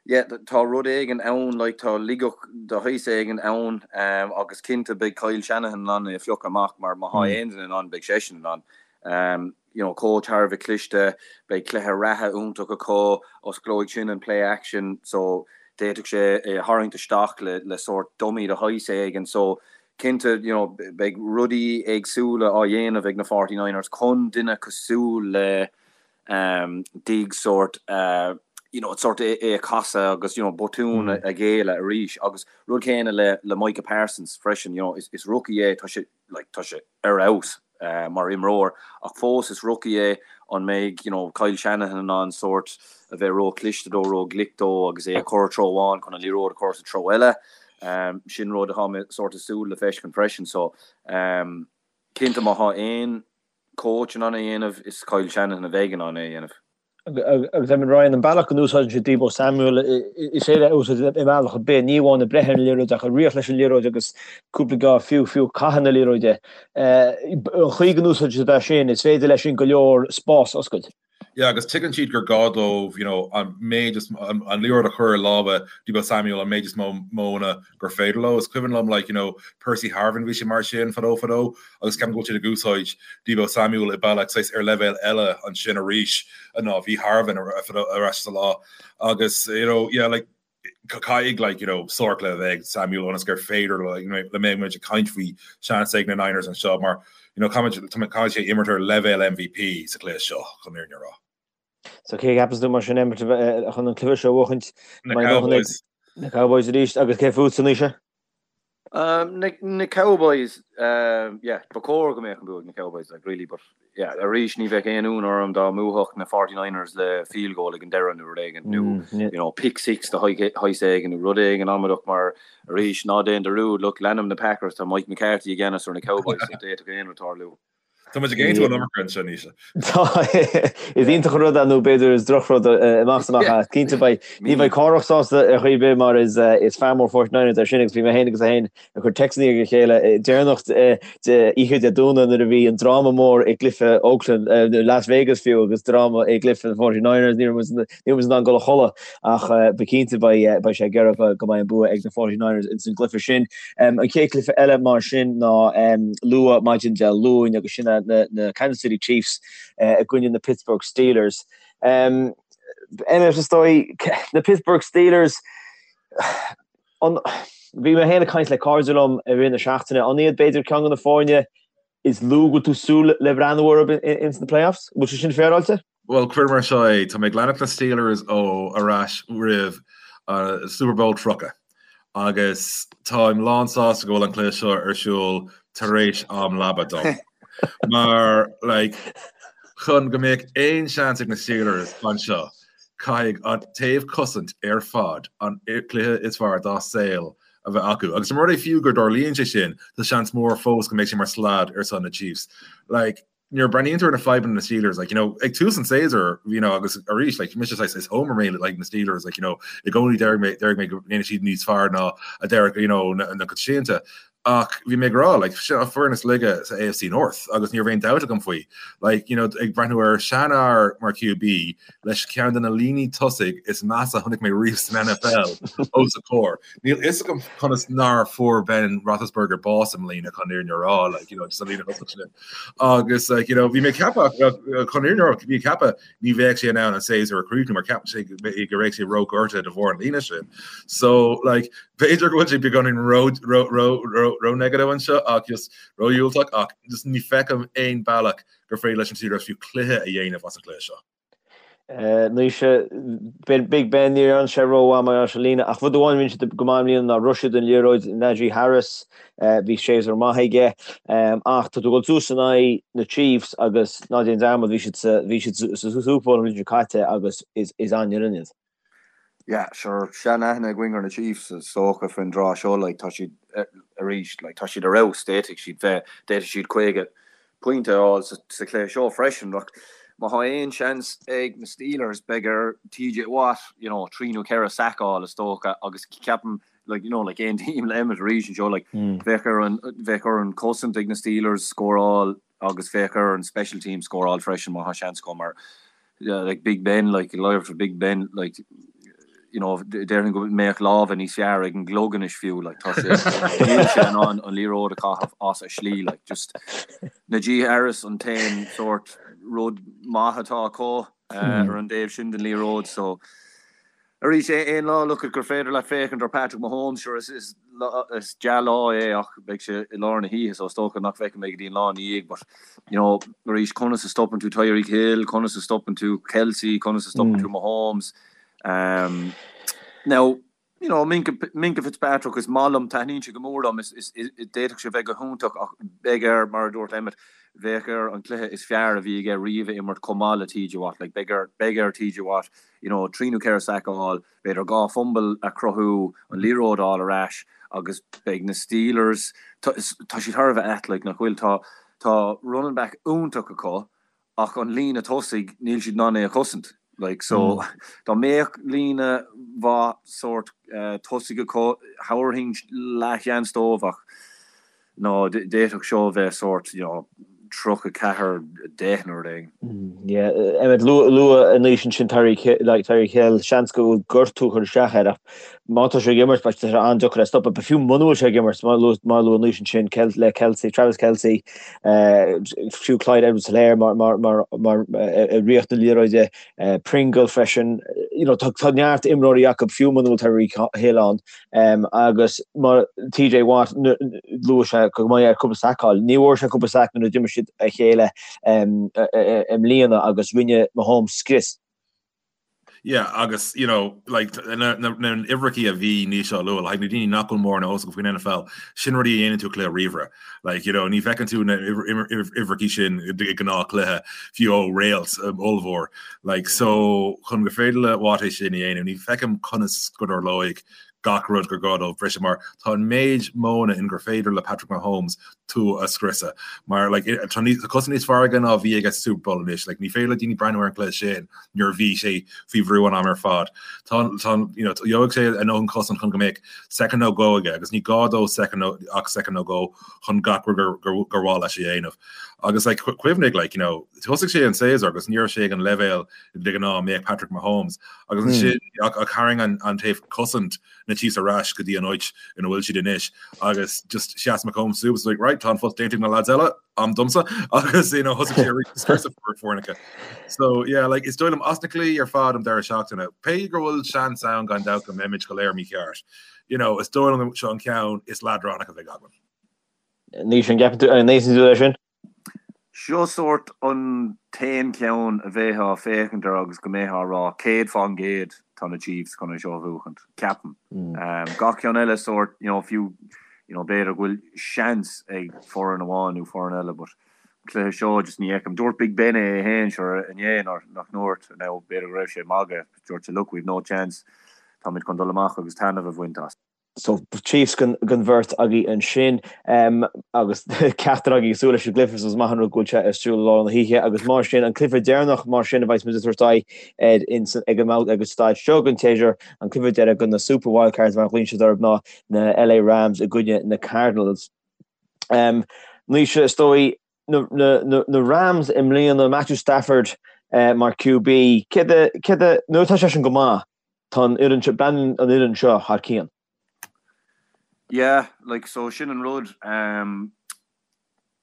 yeah, tá rud éigin ann, like, tá ligeach de shaghas éigin ann um, agus cinnte beidh Kyle Shanahan in ann é a phiocadh amach mar má thá aon duine in ann beidh seisean in ann. Um, you know, coach thar a bheith cliste, beidh cluiche reatha iontach acu, osclóidh sin an play action, so d'fhéadfadh sé é a tharraingt isteach le, le sórt dummy de shaghas éigin. So, cinnte, you know, beidh rudaí éagsúla á dhéanamh ag na 49ers chun duine cosúil le um, Diggs sórt, uh, you know, sórt é, é a chasadh agus, you know, botún a, a ghéilleadh arís. Agus rud céanna le, le Micah Parsons freisin, you know, is, is rookie é, tá sé, like, tá sé ar fheabhas mar imreoir ach fós is rookie é, an mbeidh you know Kyle Shanahan in ann sórt a bheith ró-chliste dó, ró-ghlic dó agus é a chur treo amháin chun an liathróid a chur sa treo eile? Sin rud atá mé sórt ag súil le feiscint freisin so cinnte má thá aon coach in ann é a dhéanamh is Kyle Shanahan a bheidh in ann é a dhéanamh.
Agus Emmet Ryan, an bealach go n-úsáideann sé Deebo Samuel, is féidir é a úsáid i mbealach ar bith, ní amháin ag breith ar an liathróid ach ag rith leis an liathróid agus cúpla geábh fiú, fiú ag caitheamh na liathróide. An chaoi go n-úsáideann siad é sin, is féidir leis sin go leor spás a oscailt.
Yeah, agus tuigeann siad gur gá dóibh, you know, an méid is an liathróid a chur i lámha Deebo Samuel an méid is mó modhanna gur féidir leo. Is cuimhin liom, like, you know, Percy Harvin, bhí sé mar sin fadó fadó agus ceapaim go bhfuil siad ag úsáid Deebo Samuel i bealach saghas ar leibhéal eile ansin arís ná bhí Harvin ar ais sa lá agus, you know, yeah, like, caithfidh like, you know, sárchluiche a bheith ag Samuel ionas gur féidir like, you know, le mbeidh muid ag caint faoi seans ag na Niners anseo mar you know, caithfidh caithfidh sé imirt ar leibhéal MVP sa chluiche seo chun an fhírinne a rá.
So cé a cheapas tú mar sin imirt chun an cluiche seo a bhuachaint? Na Cowboys. Na Cowboys arís agus cé fútsa Naoise?
Na Cowboys, yeah, ba chóir go mbeadh an bua ag na Cowboys, like, really, but, yeah, arís ní bheadh aon ionadh orm dá mbuafadh na 49ers le field goal ag an deireadh nó rud éigin, nó, you know, pick six de shaghas éigin nó rud éigin amaideach mar, arís, ná déan dearúd, look, leanaim na Packers, tá Mike McCarthy i gceannas ar na Cowboys, so d'fhéadfadh aon rud tarlú.
Tá muid ag aontú an iomarca anseo, Naoise.
Tá, is iontach an rud é nó b'fhéidir is drochrud amach is amach é. Cinnte beidh, ní bheidh Cárthach sásta ar chaoi ar bith mar is is fear mór 49ers é sin agus bhí mé féin agus é féin ag cur téacsanna ag a chéile deireanach de oíche Dé Domhnaigh nuair a bhí an dráma mór i gcluiche Oakland, Las Vegas fiú agus dráma i gcluiche na 49ers, ní raibh muid Ní raibh muid in ann dul a chodladh ach ba cinnte beidh sé ag iarraidh go mbeidh an bua ag na 49ers ins an gcluiche sin. An chéad chluiche eile mar sin ná luath maidin Dé Luain agus sin na Kansas City Chiefs i gcoinne na Pittsburgh Steelers. Emmet is dóigh na Pittsburgh Steelers bhí mé féin ag caint le cairde liom i rith na seachtaine, an iad b'fhéidir ceann de na foirne is lú go bhfuil tú súil le breathnú orthu ins na playoffs? Bhfuil sé sin féaráilte?
Bhuel, cuir mar seo é, tá mé ag leanacht na Steelers ó ar ais roimh Super Bowl 30 agus táim lán sásta go bhfuil an cluiche seo ar siúl tar éis am leaba dom. Mar, like, chun go mbeadh aon seans ag na Steelers anseo, caithfidh an taobh cosaint ar fad an cluiche is fearr dá saol a bheith acu. Agus mura rud é fiú go dtarlaíonn sé sin, tá seans mór fós go mbeidh sé mar slad ar son na Chiefs. Like, nuair a breathnaíonn tú ar na fadhbanna na Steelers, like, you know, ag tús an tséasúir, you know, agus arís, like, mise saghas is homer mé like na Steelers, like, you know, i gcónaí deir mé deir mé go ndéanfaidh siad níos fearr ná a deir, you know, na, na coitianta. Ach bhí mé ag rá, like, sin an foireann is laige sa AFC North agus ní raibh aon dabht agam faoi. Like, you know, ag breathnú ar seanfhear mar QB leis ceann de na líní tosaigh is measa a chonaic mé riamh san NFL os a chomhair. Níl fhios agam conas nár fuair Ben Roethlisberger bás i mbliana chun an fhírinne a rá, like, you know, just an líne thosach sin. Agus, like, you know, bhí mé ag ceapadh, chun an fhírinne a rá, bhí mé ag ceapadh ní bheadh sé in ann an séasúr a chríochnú mar cheap sé go raibh sé róghortaithe de bharr an líne sin. So, like, b'fhéidir go bhfuil sé beagáinín ró ró ró ró ró negative anseo ach just ródhiúltach ach just ní feicim aon bealach gur féidir leis an Steelers fiú cluiche a dhéanamh as an gcluiche seo.
Naoise, Big Ben, ní dhearna sé rómhaith mar gheall ar an líne, ach rud amháin a rinne siad go maith i mbliana ná rith siad an liathróid, Najee Harris, bhí séasúr maith aige, ach tá tú ag dul suas in aghaidh na Chiefs agus ná déan dearmad, bhí siad sa, bhí siad sa Super Bowl an bhliain seo caite agus is, is an-fhoireann iad.
Yeah, sure, sean-aithne againn ar na Chiefs is dócha faoin dtráth seo, like, tá siad arís, like, tá siad ar fheabhas, d'fhéadfadh siad bheith, d'fhéadfadh siad 50 pointe a fháil sa chluiche seo freisin. Ach má tá aon seans ag na Steelers, beidh ar TJ Watt, you know, 3 nó 4 sack a fháil is dócha agus ceapaim, like, you know, like aontaím le Emmet arís anseo, like, bheadh ar an, bheadh ar an chosaint ag na Steelers scóráil agus bheadh ar an special team scóráil freisin má tá seans acu mar like Big Ben, like live for Big Ben, like you know, déarfainn go mbeadh lámha níos fearr ag an gclog anois fiú, like tá sé níl sé in ann an liathróid a chaitheamh as a shlí, like just Najee Harris an t-aon sórt rud maith atá acu ar an dtaobh sin den liathróid, so Arís, aon lá look gur féidir leat féachaint ar Patrick Mahomes, sure is is is dea-lá é ach beidh sé i lár na hoíche so is dócha nach bhfeicfidh mé go dtí an lá ina dhiaidh but you know arís conas a stopann tú Tyreek Hill, conas a stopann tú Kelce, conas a stopann tú Mahomes. Um, now, you know, Minkah, Minkah Fitzpatrick is maith liom, taitníonn sé go mór liom, is, is, is, d'fhéadfadh sé bheith go hiontach ach beidh air, mar a dúirt Emmet, bheadh air an cluiche is fearr a bhí aige riamh a imirt chomh maith le TJ Watt, like beidh air, beidh ar TJ Watt you know, 3 nó 4 sack a fháil, b'fhéidir 2 fumble a chruthú, an liathróid a fháil ar ais agus beidh na Steelers, tá siad thar a bheith ait, like, nach bhfuil? Tá, tá running back iontach acu ach an líne tosaigh, níl siad in ann é a chosaint, like, so dá mbeadh líne mhaith sórt tosaigh acu, thabharfainn leathsheans dóibh ach, no, d'fhéadfadh seo a bheith sórt, you know. 34, 10 nó rud éigin.
Yeah, Emmet, luadh anois ansin Tyreek like Tyreek Hill, seans go bhfuil gortú ag cur isteach air ach má tá sé ag imirt beidh sé an-deacair é a stopadh. But fiú muna bhfuil sé ag imirt, mar mar a luadh anois ansin le Kelce, Travis Kelce, fiú Clyde Edwards-Helaire mar mar mar mar i ríocht na liathróide, Pringle freisin, you know, tá tá neart imreoirí acu fiú muna bhfuil Tyreek Hill ann. Agus mar TJ Watt, luaigh sé go mbeidh air cúpla sac a fháil. Ní bhfuair sé cúpla sac nuair a d'imir siad a chéile i mbliana agus rinne Mahomes scrios.
Yeah, agus, you know, like, na n-uimhreachaí a bhí Naoise á lua, like, na daoine nach bhfuil mórán eolas acu faoin NFL, sin rudaí a dhéanann tú i gcluiche ríomhaire. Like, you know, ní fheiceann tú na uimhreachaí sin i gnáthchluiche, fiú ó réalt ollmhór. Like, so, chun gur féidir le Watt é sin a dhéanamh, ní feicim conas go dtarlóidh gach rud gur gá dóibh briseadh, mar tá an méid modhanna in gur féidir le Patrick Mahomes tú a scriosadh. Mar, like, tá níos, tá cosaint níos fearr aige ná a bhí aige sa Super Bowl anois. Like, ní féidir le daoine breathnú ar an gcluiche sin nuair a bhí sé faoi bhrú an am ar fad. Tá, tá, you know, gheobhaidh sé a ndóthain cosaint chun go mbeadh soicind nó dhó aige, agus ní gá dó soicind nó, ach soicind nó dhó chun gach rud gur, gur, gur mhaith leis a dhéanamh. Agus, like, cuimhnigh, like, you know, Thosaigh sé an séasúr agus ní raibh sé ag an leibhéal de ghnáth a mbeadh Patrick Mahomes agus ansin ach tharraing an taobh cosaint na Chiefs ar ais go dtí an áit ina bhfuil siad anois agus just sheas Mahomes suas like right tá an post déanta ag na lads eile am domsa agus you know thosaigh sé arís ag scriosadh foirne. So yeah like is dóigh liom as na cluichí ar fad an deireadh seachtaine pé go bhfuil seans ann gan dabht go mbeimid go léir mícheart you know is dóigh liom seo an ceann is leadránach a bheidh againn.
Naoise an gceapann tú an n-aontaíonn tú leis sin?
Seo sórt an t-aon cheann a bheifeá ag féachaint air agus go mbeifeá ag rá 100% tá na Chiefs chun é seo a bhuachaint, ceapaim. Gach ceann eile sórt, you know, fiú, you know, b'fhéidir go bhfuil seans ag foireann amháin nó foireann eile but an cluiche seo just ní fheicim. Dúirt Big Ben é féin sure inné nach ndúirt, now b'fhéidir go raibh sé ag magadh, dúirt sé look we've no chance, táimid chun dul amach agus taitneamh a bhaint as.
So Chiefs don bheirt agaibh ansin agus ceachtar agaibh ag súil leis an gcluiche so is maith an rud go bhfuil sé ar siúl i lár na hoíche agus mar sin an cluiche deireanach mar sin a bheas muid ag tabhairt aghaidh air ag an ag an staid seo den tséasúr an cluiche deireadh de na Super Wildcards mar a ghlaonn siad orthu ná na LA Rams i gcoinne na Cardinals. Naoise is dóigh na Rams i mbliana Matthew Stafford mar QB céard céard nuair atá seisean go maith Tá an fhoireann seo, breathnaíonn an fhoireann seo thar cionn.
Yeah, like so sin an rud, um,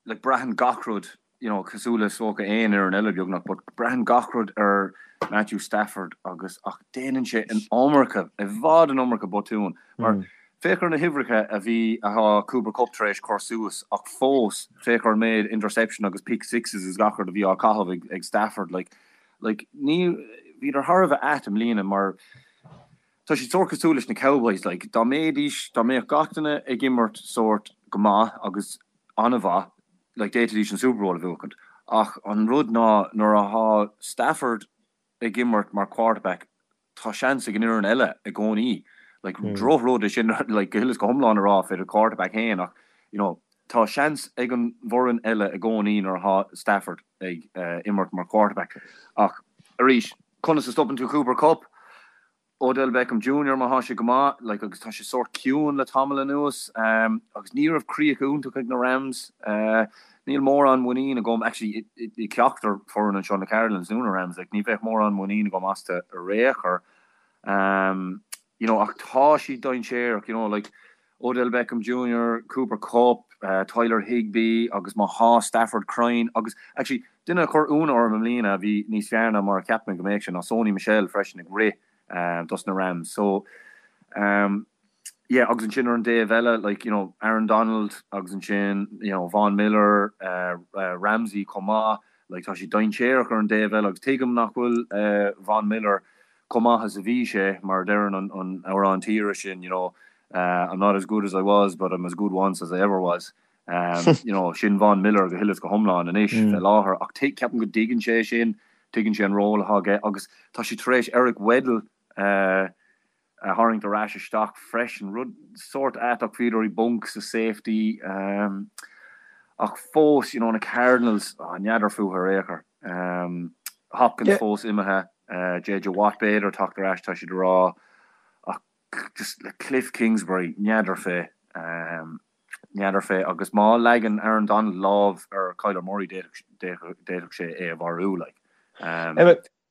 like braitheann gach rud, you know, cosúil le is dócha aon fhoireann eile beagnach, but braitheann gach rud ar Matthew Stafford agus ach déanann sé an iomarca, i bhfad an iomarca botún. Mar féach ar na huimhreacha a bhí, atá Cooper Kupp tar éis cur suas ach fós féach ar an méid interception agus pick sixes is gach rud a bhí á caitheamh ag, ag Stafford, like Like, ní, bhíodar thar a bheith ait i mbliana mar tá siad sórt cosúil leis na Cowboys, like, dá mbeidís, dá mbeadh gach duine ag imirt sórt go maith agus an-mhaith, like, d'fhéadfaidís an Super Bowl a bhuachaint. Ach an rud ná nuair atá Stafford ag imirt mar quarterback, tá seans ag an fhoireann eile i gcónaí. Like, drochrud é sin, like, go huile is go hiomlán a rá fé do quarterback féin ach, you know, tá seans ag an bhfoireann eile i gcónaí nuair atá Stafford ag imirt mar quarterback. Ach arís, conas a stopann tú Cooper Kupp? Odell Beckham Junior má thá sé go maith, like, agus tá sé sórt ciúin le tamall anuas, agus ní raibh críoch iontach ag na Rams. Níl mórán muinín agam, actually, i ceachtar foireann anseo, na Cardinals nó na Rams, like, ní bheadh mórán muinín agam astu ar aon chor. You know, ach tá siad dainséarach, you know, like, Odell Beckham Junior, Cooper Kupp, Tyler Higbee agus má thá Stafford cruinn agus, actually, duine a chuir ionadh orm i mbliana a bhí níos fearr ná mar a cheap mé go mbeadh sé ná Sony Michel freisin ag rith dos na Rams. So, yeah, agus ansin ar an dtaobh eile, like, you know, Aaron Donald agus ansin, you know, Von Miller, Ramsey chomh maith, like, tá siad dainséarach ar an dtaobh eile agus tuigim nach bhfuil Von Miller chomh maith is a bhí sé, mar a deireann an amhrán tíre sin, you know, I'm not as good as I was, but I'm as good once as I ever was. You know, sin Von Miller go huile is go hiomlán anois fé láthair ach ceapaim go dtuigeann sé sin, tuigeann sé an ról atá aige agus tá siad tar éis Eric Weddle a tharraingt ar ais isteach freisin, rud sórt ait ach bhíodar i bponc sa safety ach fós, you know, na Cardinals, n'fheadar fúthu ar aon chor. Hopkins fós imithe, JJ Watt b'fhéidir teacht ar ais tá siad a rá ach just le Kliff Kingsbury, n'fheadar fé. N'fheadar fé, agus má leagann Aaron Donald lámh ar Kyler Murray d'fhéadfadh sé é a mharú, like.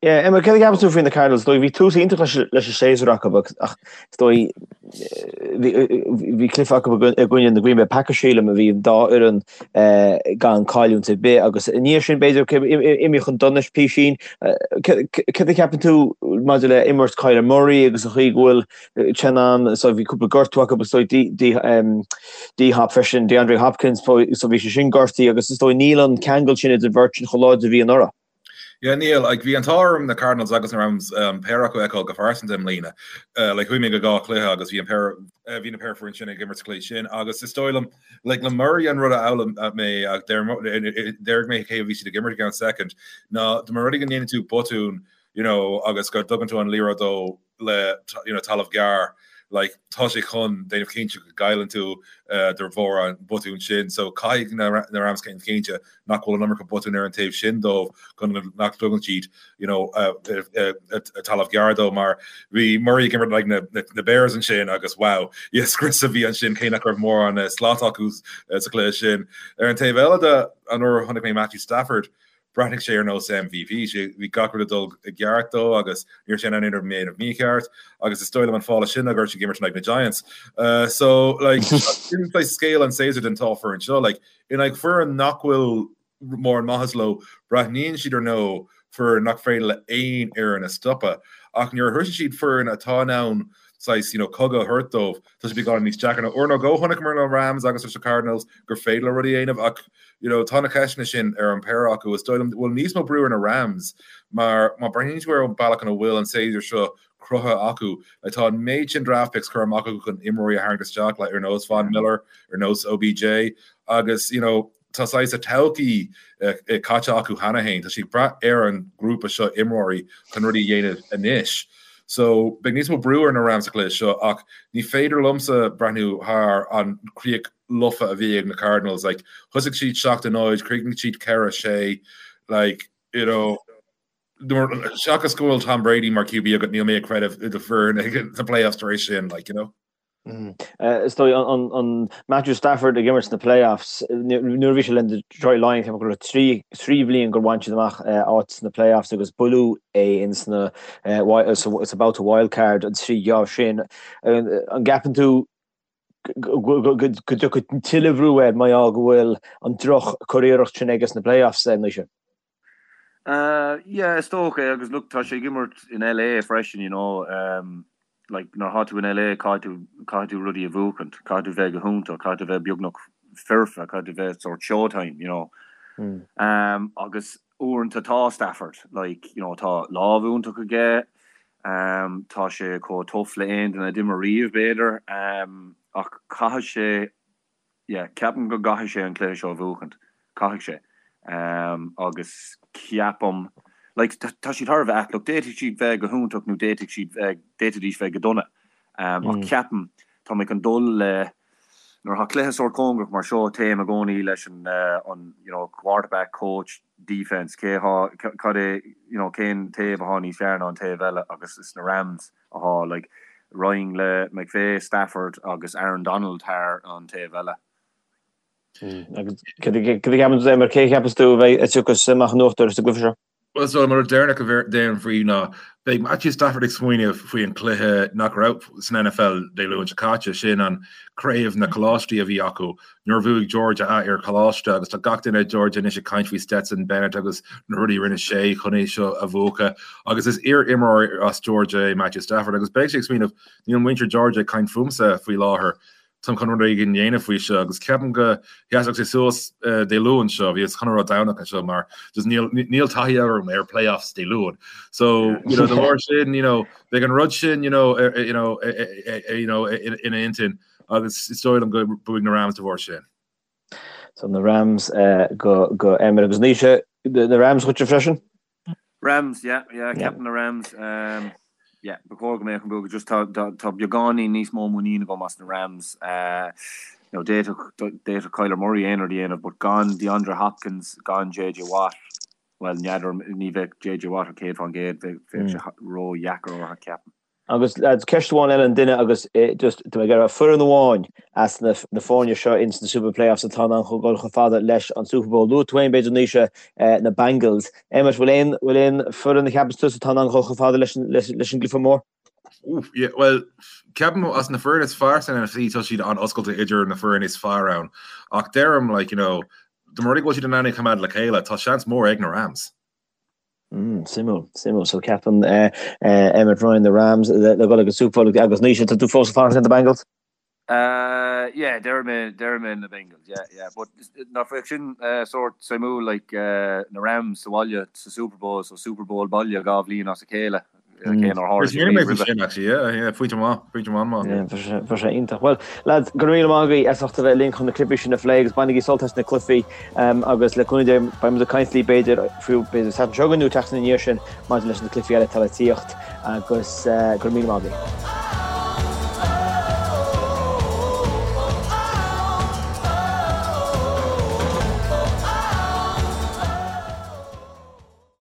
Yeah, Emma, céard a cheapann tú faoi na Cardinals? Is dóigh bhí tús iontach leis leis an séasúr acu ach is dóigh bhí cluiche acu i gcoinne na Green Bay Packers sílim a bhí an dá fhoireann gan cailliúint ar bith agus i ndiaidh sin b'fhéidir imithe chun donais písín. Céard a cheapann tú maidir le imirt Kyler Murray agus an chaoi go bhfuil Chen ann so bhí cúpla gortú acu is dóigh D-Hop freisin, DeAndre Hopkins so bhí sé sin gortaithe agus is dóigh níl an ceangal sin idir an bheirt sin chomh láidir a bhí anuraidh.
Yeah, níl. Like, bhí an t-ádh orm na Cardinals agus na Rams um, péire acu a fheiceáil go phearsanta i mbliana. Uh, like, chuaigh mé go dhá chluiche agus bhí an péire uh, bhí na péire foireann sin ag imirt sa chluiche sin agus is dóigh liom like, le Murray an rud a fhoghlaim uh, mé ach déarfaidh mé cé a bhí siad ag imirt i gceann second ná dá mba rud é go ndéanann tú botún you know, agus go dtugann tú an liathróid dó le you know, talamh gearr, like, tá sé chun déanamh cinnte go gcailleann tú uh, de bharr an botún sin. So caithfidh na, na Rams déanamh cinnte nach bhfuil an iomarca botún ar an taobh sin dóibh chun nach dtugann siad you know, uh, uh, uh, talamh gearr dó mar bhí Murray ag imirt like, na, na, na Bears ansin agus wow, yes, scrios a bhí ansin cé nach raibh mórán uh, slat acu uh, sa chluiche sin. Ar an taobh eile de an uair a chonaic mé Matthew Stafford, Bhreathnaigh sé ar nós MVP, sé, bhí gach rud ag dul i gceart dó agus ní raibh sé in ann aon rud a dhéanamh mícheart agus is dóigh liom an fáth leis sin ná go raibh sé ag imirt in aghaidh na Giants. Uh, so, like, sin like, scéal an séasúr den dá foireann seo, like, in aghaidh foireann nach bhfuil mórán maitheas leo, breathnaíonn siad ar nós foireann nach féidir le aon fhoireann a stopadh. Ach nuair a shroiseann siad foireann atá in ann saghas, you know, cogadh a thabhairt dóibh, tá sé beagán níos deacra. Uair nó dhó chonaiceamar na Rams agus leis na Cardinals gur féidir leo rudaí a dhéanamh ach you know, tá na ceisteanna sin ar an péire acu. Is dóigh liom go bhfuil níos mó brú ar na Rams mar má breathnaíonn tú ar an bealach ina bhfuil an séasúr seo cruthaithe acu, like, tá an méid sin draft picks curtha amach acu chun imreoirí a tharraingt isteach, like, ar nós Von Miller, ar nós OBJ agus you know, tá saghas a todhchaí caite acu cheana féin. Tá siad ag brath ar an grúpa seo imreoirí chun rudaí a dhéanamh anois. So beidh níos mó brú ar na Rams sa chluiche seo ach ní féidir liomsa breathnú thar an chríoch lofa a bhí ag na Cardinals. Like, thosaigh siad 7-0, chríochnaigh siad 4-6, like, you know, seachas go bhfuil Tom Brady mar QB agat, níl mé ag creideamh i do foireann ag na playoffs tar éis sin, like, you know.
Is dóigh an Matthew Stafford ag imirt sna playoffs, nuair a bhí sé le Detroit Lions, ceapaim go raibh 3 bhliain gur bhain siad amach áit sna playoffs agus buaileadh é in sna sa babhta wildcard an 3 geábh sin. An gceapann tú go dtiocfaidh tuilleadh brú air mar gheall go bhfuil an droch curiarracht sin aige sna playoffs, Naoise?
Yeah, is dócha é agus look tá sé ag imirt in LA freisin, you know, um, like nuair atá tú in LA caithfidh tú, caithfidh tú rudaí a bhuachaint, caithfidh tú bheith go hiontach, caithfidh tú bheith beagnach foirfe, caithfidh tú bheith sort showtime, you know. Um, agus uaireanta tá Stafford, like, you know, tá lámh iontach aige, um, tá sé chomh tough le aon duine a d'imir riamh b'fhéidir, um, ach caithfidh sé Yeah, ceapaim go gcaithfidh sé an cluiche seo a bhuachaint. Caithfidh sé. Agus ceapaim, like, tá siad thar a bheith ait. Look, d'fhéadfadh siad bheith go hiontach nó d'fhéadfadh siad bheith, d'fhéadfaidís bheith go dona. Ach ceapaim, tá mé chun dul le, nuair atá cluiche sórt cóngarach mar seo, téim i gcónaí leis an, an, you know, quarterback, coach, defence, cé atá, cad é, you know, cén taobh atá níos fearr ná an taobh eile agus is na Rams. atá, like, raghainn le McVay, Stafford agus Aaron Donald thar an taobh eile.
Agus cad a cheapann tú, Éimear, cé a cheapas tú a bheidh a tiocfas amach in uachtar sa gcluiche seo?
Bhuel, so an rud deireanach a déarfainn faoi ná beidh Matthew Stafford ag smaoineamh faoi an cluiche nach raibh san NFL Dé Luain seo caite, sin an craobh na coláistí a bhí acu. Nuair a bhuaigh Georgia a iar-choláiste agus tá gach duine i Georgia anois ag caint faoi Stetson Bennett agus na rudaí a rinne sé chun é seo a bhuachan agus is iar-imreoir as Georgia é Matthew Stafford agus beidh sé ag smaoineamh níl muintir Georgia ag caint fúmsa faoi láthair, táim chun rud éigin a dhéanamh faoi seo agus ceapaim go sheasfadh sé suas Dé Luain seo, bhíos chun a rá Domhnach anseo mar just níl níl taithí agam ar playoffs Dé Luain. So you know, de bharr sin you know, beidh an rud sin you know, you know, you know, ina intinn. Agus is dóigh liom go mbuafaidh na Rams de bharr sin.
So na Rams go go Éimear agus Naoise, na Rams dhuitse freisin?
Rams, yeah, yeah, ceapaim na Rams. Um, yeah, ba chóir go mbeadh an bua just tá tá beagáinín níos mó muinín agam as na Rams. Uh, you know, d'fhéadfadh d'fhéadfadh Kyler Murray aon rud a dhéanamh, but gan DeAndre Hopkins, gan JJ Watt, well, n'fheadar ní bheadh JJ Watt ar 100%, bheadh sé ró-dheacair orthu ceapaim.
Agus lads, ceist amháin eile an duine agus just tá mé ag iarraidh foireann amháin as na na foirne seo ins na Super Playoffs atá in ann chun dul chomh fada leis an Super Bowl. Luaigh tú féin b'fhéidir Naoise na Bengals. Emmet, bhfuil aon bhfuil aon foireann a cheapas tusa atá in ann dhul chomh fada leis an leis an gcluiche mór?
Oof, yeah, well, ceapaim as na foireann is fearr san NFC tá siad an-oscailte idir na foireann is fearr ann. Ach deirim, like, you know, dá mba rud é go bhfuil siad in ann é a choimeád le chéile, tá seans mór ag na Rams.
Mm, suimiúil, suimiúil. So ceapann eh, eh, Emmet Ryan na Rams le le dul ag an Super Bowl agus Naoise, tá tú fós ag fanacht le na Bengals?
Uh, yeah, deir mé, deir mé na Bengals, yeah, yeah. But nach bheadh sin uh, sort suimiúil like uh, na Rams sa bhaile sa Super Bowl, so Super Bowl baile dhá bhliain as a chéile. Cé nár tharla sé
riamh roimhe. Sin actually, yeah, yeah, pointe maith, pointe maith maith.
Yeah, bheadh sé iontach. Well, lads, go raibh míle maith agaibh as ucht a bheith linn chun na cluichí sin a phlé agus bainigí sult as na cluichí agus le cúnamh Dé beidh muid ag caint libh b'fhéidir fiú b'fhéidir Satharn seo chugainn nó tseachtain ina dhiaidh sin maidir leis na cluichí eile atá le tíocht agus go raibh míle maith agaibh.